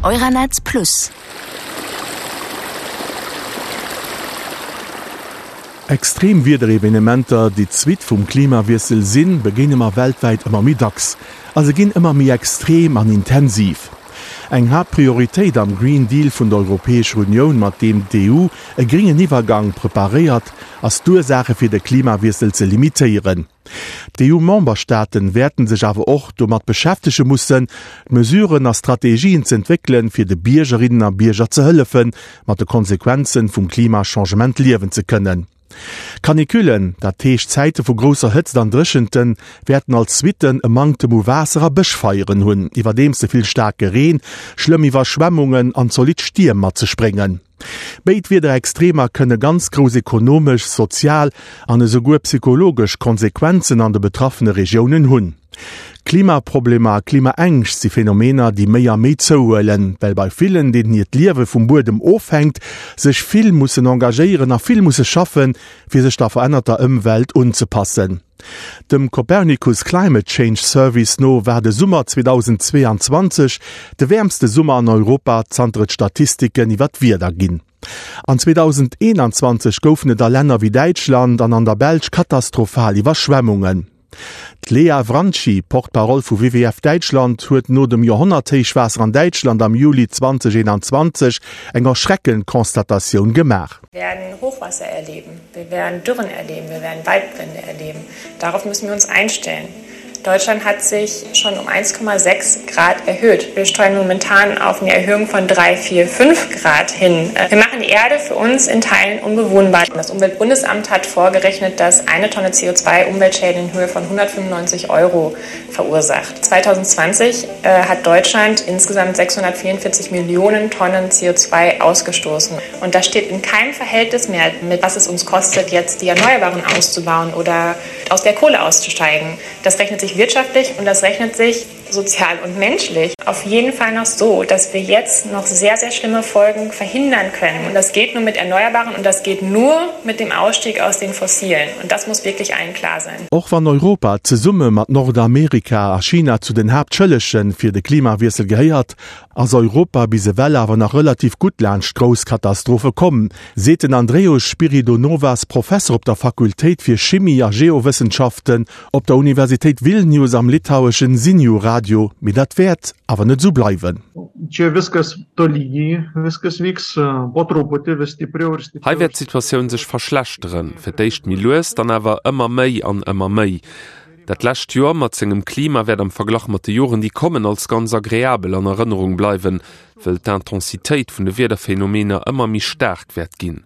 Euranetz Plus. Extrem Wiederevenementer, déi d'Suite vum Klimawiessel sinn, begéine mer weltwäit ëmmer méi dacks a se ginn ëmmer méi extrem an intensiv. Eng Haaptprioritéit am Green Deal vun der Europäescher Unioun, mat deem d'EU e gréngen Iwwergang preparéiert, ass d'Ursaache fir de Klimawiessel ze limitéieren. D'EU-Memberstaaten wäerten sech awer och domat beschäftege mussen, Mesuren a Strategien z'entwéckelen, fir de Biergerinnen a Bierger ze hëllefen, mat de Konsequenzen vum Klimachangement liewen ze kënnen. Canicullen, dat heescht Zäite vu grousser Hëtzt an Dréchenten, wäerten als Suitten e Manktem u Waasser a Bëschfeieren hunn, iwwerdeems ze vill staarke Reen, schlëmm Iwwerschwemmungen an zolidd Stierm mat sech bréngen. Béid Wiederextremer kënne ganz grouss ekonomesch, sozial an esouguer psychologesch Konsequenzen an de betraffene Regiounen hunn. Klimaproblemer a Klimaängscht si Phänomener, déi méi a méi zouhuelen, well bei villen, deenen hiert Liewe vum Buedem ofhänkt, sech vill mussen engagéieren a vill musse schaffen, fir sech der verännerter Ëmwelt unzepassen. Dem Copernicus Climate Change Service no war de Summer 2022 de wäermste Summer an Europa, zanter et Statistiken iwwer d'Wieder ginn. An 2021 goufen et a Länner wéi Däitschland an an der Belsch katastrophal Iwwerschwemmungen. D'Lea Wranchi, Porte-parole vu WWF Däitschland, huet no dem Joerhonnerthéichwaasser an Däitschland am Juli 2021 eng erschreckend Constatatioun gemaach. Wir werden Hochwasser erleben, wir werden Dürren erleben, wir werden Waldbrände erleben. Darauf müssen wir uns einstellen. Deutschland hat sich schon um 1,6 Grad erhöht. Wir steuern momentan auf eine Erhöhung von 3, 4, 5 Grad hin. Wir machen die Erde für uns in Teilen unbewohnbar. Das Umweltbundesamt hat vorgerechnet, dass eine Tonne CO2 Umweltschäden in Höhe von 195 Euro verursacht. 2020 äh, hat Deutschland insgesamt 644 Millionen Tonnen CO2 ausgestoßen. Und das steht in keinem Verhältnis mehr mit, was es uns kostet, jetzt die Erneuerbaren auszubauen oder aus der Kohle auszusteigen. Das rechnet sich wirtschaftlich und das rechnet sich sozial und menschlich. Auf jeden Fall noch so, dass wir jetzt noch sehr, sehr schlimme Folgen verhindern können. Und das geht nur mit Erneuerbaren und das geht nur mit dem Ausstieg aus den Fossilen. Und das muss wirklich allen klar sein. Och wann Europa zesumme mat Nordamerika a China zu den Haaptschëllege fir de Klimawiessel gehéiert, ass Europa bis ewell awer nach relativ gutt laanscht grouss Katastrophe komm, seet den Andrejus Spiridonovas, Professer op der Fakultéit fir Chimie a Geowëssenschaften op der Universitéit Vilnius am litaueschen Ziniu Radio. Mee dat wäert awer net esou bleiwen. Hei wäert d'Situatioun sech verschlechteren, fir d'éischt méi lues, dann awer ëmmer méi an ëmmer méi. Dat lescht Joer mat sengem Klima wäert am Verglach mat de Joren, déi kommen, als ganz agreabel an Erënnerung bleiwen, wëll d'Intensitéit vun de Wiederphänomener ëmmer méi staark wäert ginn.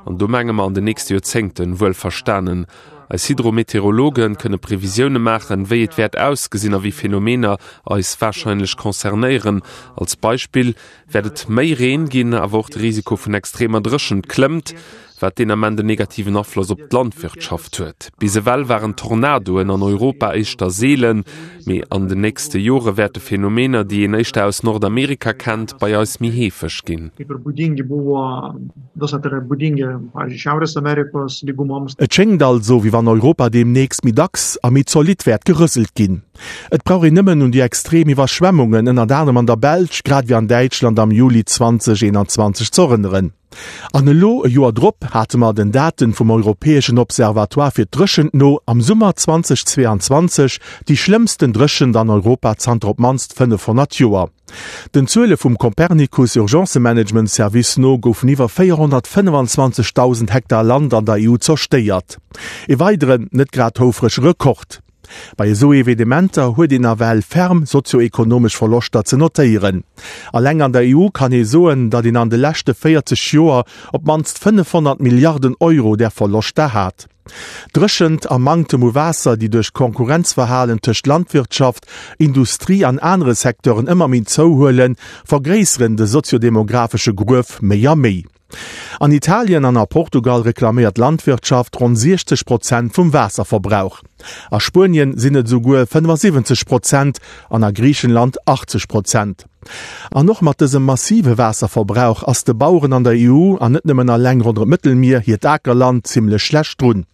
An do menge mer an den nächste Joerzéngten, wuel verstanen. Eis Hydrometeorologe kënne Previsioune maachen, wéi et wäert ausgesinn a wéi Phänomener eis warscheinlech concernéieren. Als Beispill wäert et méi Reen ginn, awer och de Risiko vun extremer Dréchent klëmmt, wat deen Ament en negativen Afloss op d'Landwirtschaft huet. Bis ewell waren Tornadoen an Europa éischter seelen, mee an den nächste Jore wäerte Phänomener, déi een éischter aus Nordamerika kennt, bei eis méi heefeg ginn. Et schéngt also, wéi wann Europa deemnächst méi dacks a méi zolidd wäert gerëselt ginn. Et brauch een nëmmen un déi extrem Iwwerschwemmungen, ënnert anerem an der Belsch, grad ewéi an Däitschland am Juli 2021 ze erënneren. An elo, e Joer drop, hate mer den Daten vum Europäeschen Observatoire fir d'Dréchent no am Summer 2022 déi schlëmmsten Dréchent an Europa zanter op d'mannst 500 Joer. Den Zuele vum Copernicus Urgencemanagement Service no goufen iwwer 425.000 Hektar Land an der EU zerstéiert. E weideren, net grad houfrege Rekord. Bei esou Evenementer huet een nawell ferm sozio-ekonomesch Verloschter ze notéieren. Alleng an der EU kann ee soen, datt een an de leschte 40 Joer op d'mannst 500 Milliarden Euro där Verloschter hat. Dréchent a Manktem u Waasser, déi duerch d'Konkurrenzverhalen tëscht Landwirtschaft, Industrie an anere Secteuren ëmmer méi zouhuelen, vergréisseren de soziodemographesche Gruef méi a méi. An Italien an a Portugal reklaméiert d'Landwirtschaft ronn 60 Prozent vum Waasserverbrauch. A Spuenien sinn et esouguer 75 Prozent an a Griichenland 80 Prozent. An och mat dësem massive Waasserverbrauch ass de Baueren an der EU, an net nëmmen alleng ronderëm d'Mëttelmier, hiert Akerland zimmlech schlecht drun.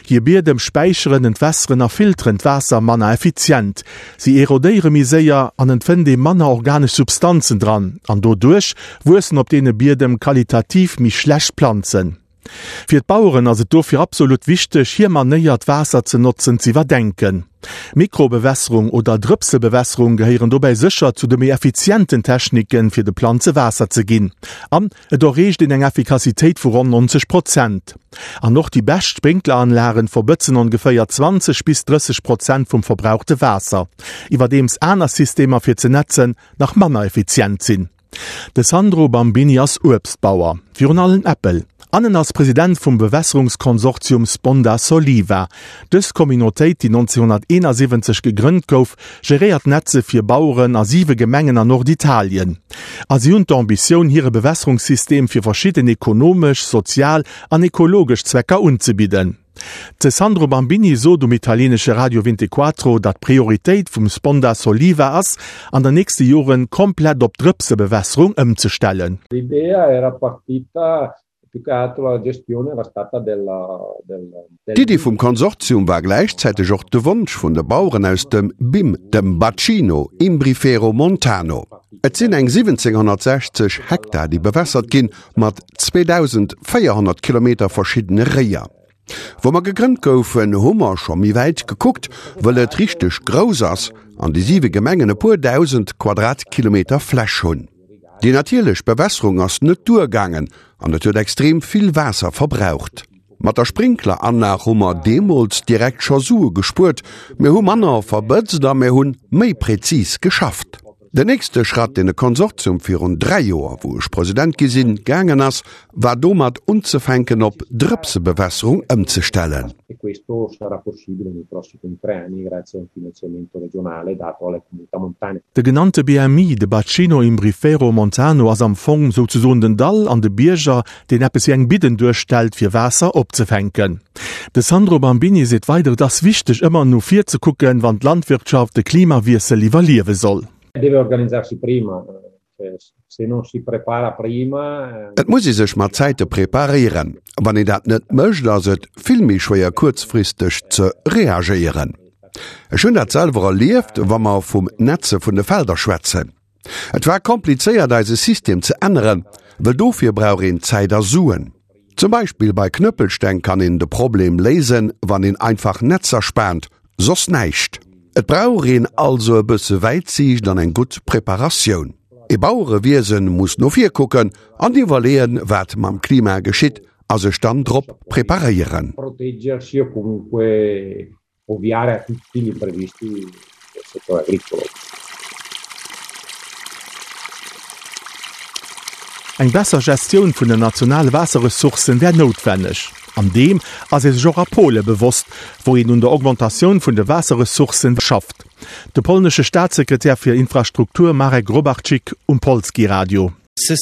Hir Biedem späicheren, entwässeren a filteren d'Waasser manner effizient, si erodéiere méi séier an et fënnt ee manner organesch Substanzen dran an doduerch wuessen op deene Biedem qualitativ méi schlecht Planzen. Fir d'Baueren ass et dofir absolut wichteg, hir Manéier d'Waasser ze notzen z'iwwerdenken. Mikrobewässerung oder Drëpsebewässerung gehéieren dobäi sécher zu de méi effizienten Techniken, fir de Planze Waasser ze ginn. An et erreecht een eng Effikassitéit vu ronn 90 Prozent. An och déi bescht Sprinkleranlagen verbëtzen ongeféier 20 bis 30 Prozent vum verbrauchte Waasser, iwwerdeems aner Systemer fir ze netzen nach manner effizient sinn. De Sandro Bambini ass Uebstbauer, virun allem Äppel, an en ass President vum Bewässerungskonsortium Sponda Soliva. Dës Communautéit, déi 1971 gegrënnt gouf, geréiert Netze fir Baueren a siwe Gemengen an Norditalien. A si hunn d'Ambitioun, hire Bewässerungssystem fir verschidden ekonomesch, sozial an ekologesch Zwecker unzebidden. De Sandro Bambini sot um italienesche Radio Vintequattro, datt d'Prioritéit vum Sponda Soliva ass, an der nächste Joren komplett op Drëpsebewässerung ëmzestellen. D'Iddi vum Konsortium war gläichzäiteg och de Wonsch vun de Baueren aus dem BIM, dem Bacino Imbrifero Montano. Et sinn eng 1760 Hektar, déi bewässert ginn, mat 2.400 Kilometer verschiddene Réier. Wou mer gegrënnt goufen, hu mer scho méi wäit gekuckt, wëll et richteg grouss ass an déi siwe Gemengen e puer 1.000 Quadratkilometer Fläch hunn. Déi natierlech Bewässerung ass net duergaangen an et huet extrem vill Waasser verbraucht. Mat der Sprinkleranlag hu mer deemools direkt scho Sue gespuert, mir hu manner verbëtzt a mir hunn méi präzis geschafft. Den nächste Schratt, deen de Konsortium virun 3 Joer, wou ech President gi sinn, gaangen ass, war domat unzefänken op Drëpsebewässerung ëmzestellen. De genannte BMI, de Bacino Imbrifero Montano, ass am Fong souzesoen den Dall an de Bierger, deen eppes wéi eng Bidden duerstellt, fir Waasser opzefänken. De Sandro Bambini seet weider, Et ass wichteg, ëmmer no vir ze kucken, wann d'Landwirtschaft de Klimawiessel iwwerliewe soll. Et muss ee sech mat Zäite preparéieren. Wann een dat net mécht, ass et vill méi schwéier kuerzfristeg ze reagéieren. Ech hunn dat selwer erlieft, wa mer vum Netze vun de Felder schwätzen. Et war komplizéiert eise System ze änneren, wëll dofir brauch een Zäit a Suen. Zum Beispill bei Knëppelsteng kann een de Problem léisen, wann een einfach Netzer spaant, soss näischt. Et brauch een also e bësse Wäitsiicht an eng gutt Preparatioun. E Bauerewiesen muss no vir kucken an iwwerleeën, wat mam Klima geschitt a sech dann drop preparéieren. Ovviare a tutti gli imprevisti del settore agricolo. Eng besser Gestioun vun den nationale Waasserressourcen wär noutwenneg. An deem ass ee sech och a Pole bewosst, wou een un der Augmentatioun vun de Waasserressourcen schafft. De polnesche Staatssekretär fir Infrastruktur Marek Grobarczyk um Polskie Radio. De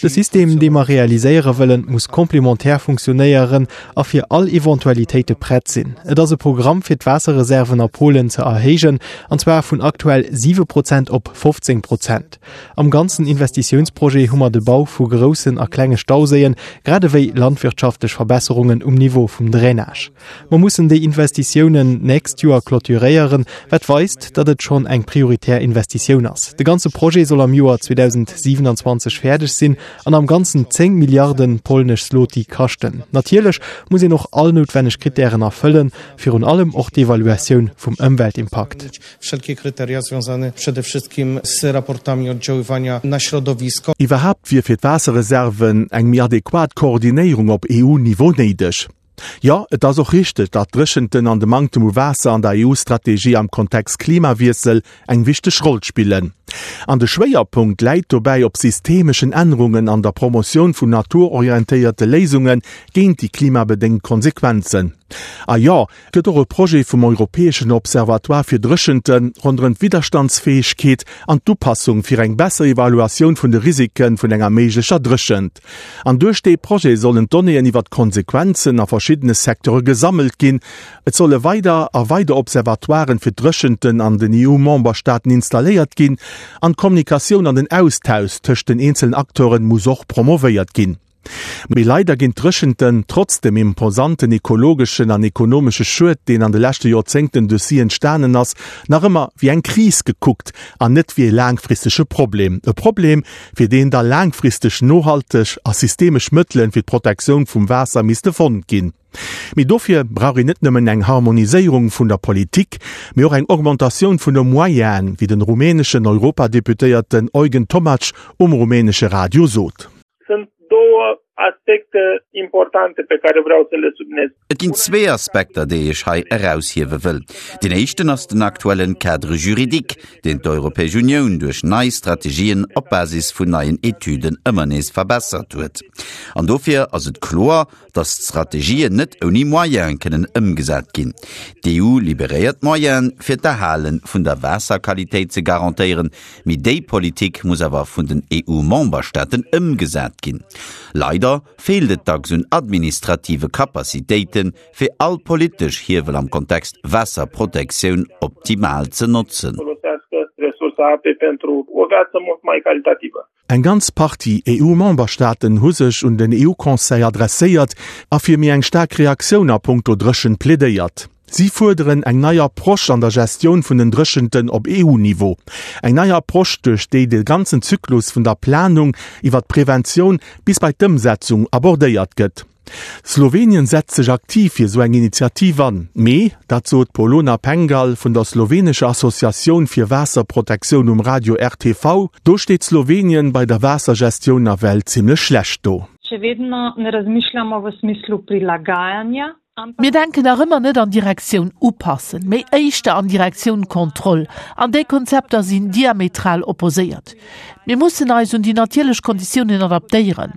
System, dee mer realiséiere wëllen, muss complémentaire funktionéieren a fir all Eventualitéite prett sinn. Et ass e Programm, fir d'Waasserreserven a Polen ze erhéijen, an zwar vun aktuell 7 Prozent op 15 Prozent. Am ganzen Investitiounsprojet hu mer de Bau vu groussen a klenge Stauséien, grad ewéi landwirtschaftlech Verbesserungen um Niveau vum Drainage. Mer mussen déi Investitiounen d'nächst Joer clôturéieren, wat weist, datt et schonn eng prioritär Investitioun ass. De ganze Projet soll am Joer 2027 fäerdeg sinn an am Ganzen 10 Milliarde polnesch Zloty kaschten. Natierlech muss een och all noutwenneg Krittären erfëllen, virun allem och d'Evaluatioun vum Ëmweltimpakt. Iwwerhaapt wier fir d'Waasserreserven eng méi adequat Koordinéierung op EU-Niveau néideg. Jo, et ass och richteg, datt d'Dréchenten an de Manktem u Waasser an der EU-Strategie am Kontext Klimawiessel eng wichteg Roll spillen. An de Schwéierpunkt läit dobäi op systemeschen Ännerungen an der Promotioun vun naturorientéierte Léisunge géint déi klimabedéngt Konsequenzen. A jo, et gëtt och e Projet vum Europäeschen Observatoire fir Dréchente ronderëm d'Widderstandsfäegkeet an d'Upassung fir eng besser Evaluatioun vun de Risike vun enger méiglecher Dréchent. An duerch dee Projet sollen d'Donnéeën iwwer d'Konsequenzen a. verschiddene Secteure gesammelt ginn, et solle weider a weider Observatoiren fir d'Dréchenten an den EU-Memberstaaten installéiert ginn an d'Kommunikatioun an den Austausch tëscht den eenzelen Acteure muss och promovéiert ginn. Mee leider ginn d'Dréchenten, trotz dem imposanten ekologeschen an ekonomesche Schued, deen an de leschte Joerzéngten duerch si entstanen ass, nach ëmmer wéi eng Kris gekuckt an net wéi e laangfristege Problem. E Problem, fir deen da laangfristeg nohalteg a systemesch Mëttele fir d'Protektioun vum Waasser misste fonnt ginn. Mee dofir brauch een net nëmmen eng Harmoniséierung vun der Politik, mee och eng Augmentatioun vun de Moyenen, wéi den rumäneschen Europadeputéierten Eugen Tomac um rumänesche Radio sot. Sunt două aspecte importante pe care vreau să le subliniez. Et ginn zwee Aspekter, déi ech hei eraushiewe wëll. Deen éischten ass den aktuellen Cadre juridique, deen d'Europäesch Unioun duerch nei Strategien op Basis vun neien Etüden ëmmer nees verbessert huet. An dofir ass et kloer, dass d'Strategien net ouni Moyene kënnen ëmgesat ginn. D'EU liberéiert Moyene, fir d'Erhale vun der Waasserqualitéit ze garantéieren, mee déi Politik muss awer vun den EU-Memberstaaten ëmgesat ginn. Leider feelt et dacks un administrative Capacitéiten, fir all politesch Hiewel am Kontext Waasserprotektioun optimal ze notzen. Eng ganz Partie EU-Memberstaaten hu sech un den EU-Conseil adresséiert a fir méi eng staark Reaktioun a punkto Dréchent plädéiert. Si fuerderen eng nei Approche an der Gestioun vun den Dréchenten op EU-Niveau. Eng nei Approche, duerch déi de ganzen Zyklus vun der Planung iwwer d'Preventioun bis bei d'Ëmsetzung abordéiert gëtt. Slowenien setzt sech aktiv fir esou eng Initiativ an, mee, dat sot d'Polona Pengal vun der slowenescher Associatioun fir Waasserprotektioun um Radio RTV, do steet Slowenien bei der Waassergestioun nawell zimmlech schlecht do. Še vedno ne razmišljamo v smislu prilagajanja, Mir denken nach ëmmer net an Direktioun upassen, mee éischter an Direktioun Kontroll. An déi Konzepter sinn diametral opposéiert. Mir mussen eis un déi natierlech Konditiounen adaptéieren.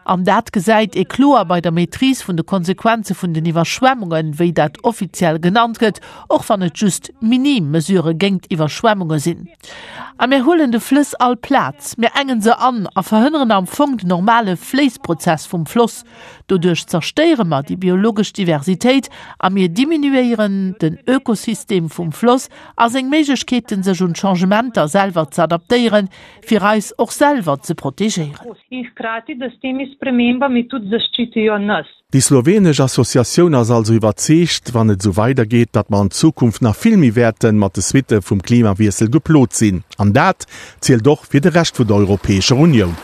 An dat gesäit ee kloer bei der Maîtrise vun de Konsequenze vun den Iwwerschwemmungen, wéi dat offiziell genannt gëtt, och wann et just minim Mesurë géingt Iwwerschwemmunge sinn. A mir huelen de Flëss all Plaz, mir engen se an a verhënneren am Fong den normale Fléissprozess vum Floss. Doduerch zerstéiere mer déi biologesch Diversitéit a mir diminuéieren den Ökosystem vum Floss a seng Méiglechkeeten, sech un d'Changementer selwer ze adaptéieren, fir eis och selwer ze protegéieren. In hkrati, da s temi spremembami tudi zaščitijo nas. Déi slowenesch Associatioun ass also iwwerzeegt, wann et esou weidergeet, datt mer an Zukunft nach vill méi wäerte mat de Suitte vum Klimawiessel geplot sinn. An dat zielt och fir de Rescht vun der Europäescher Unioun.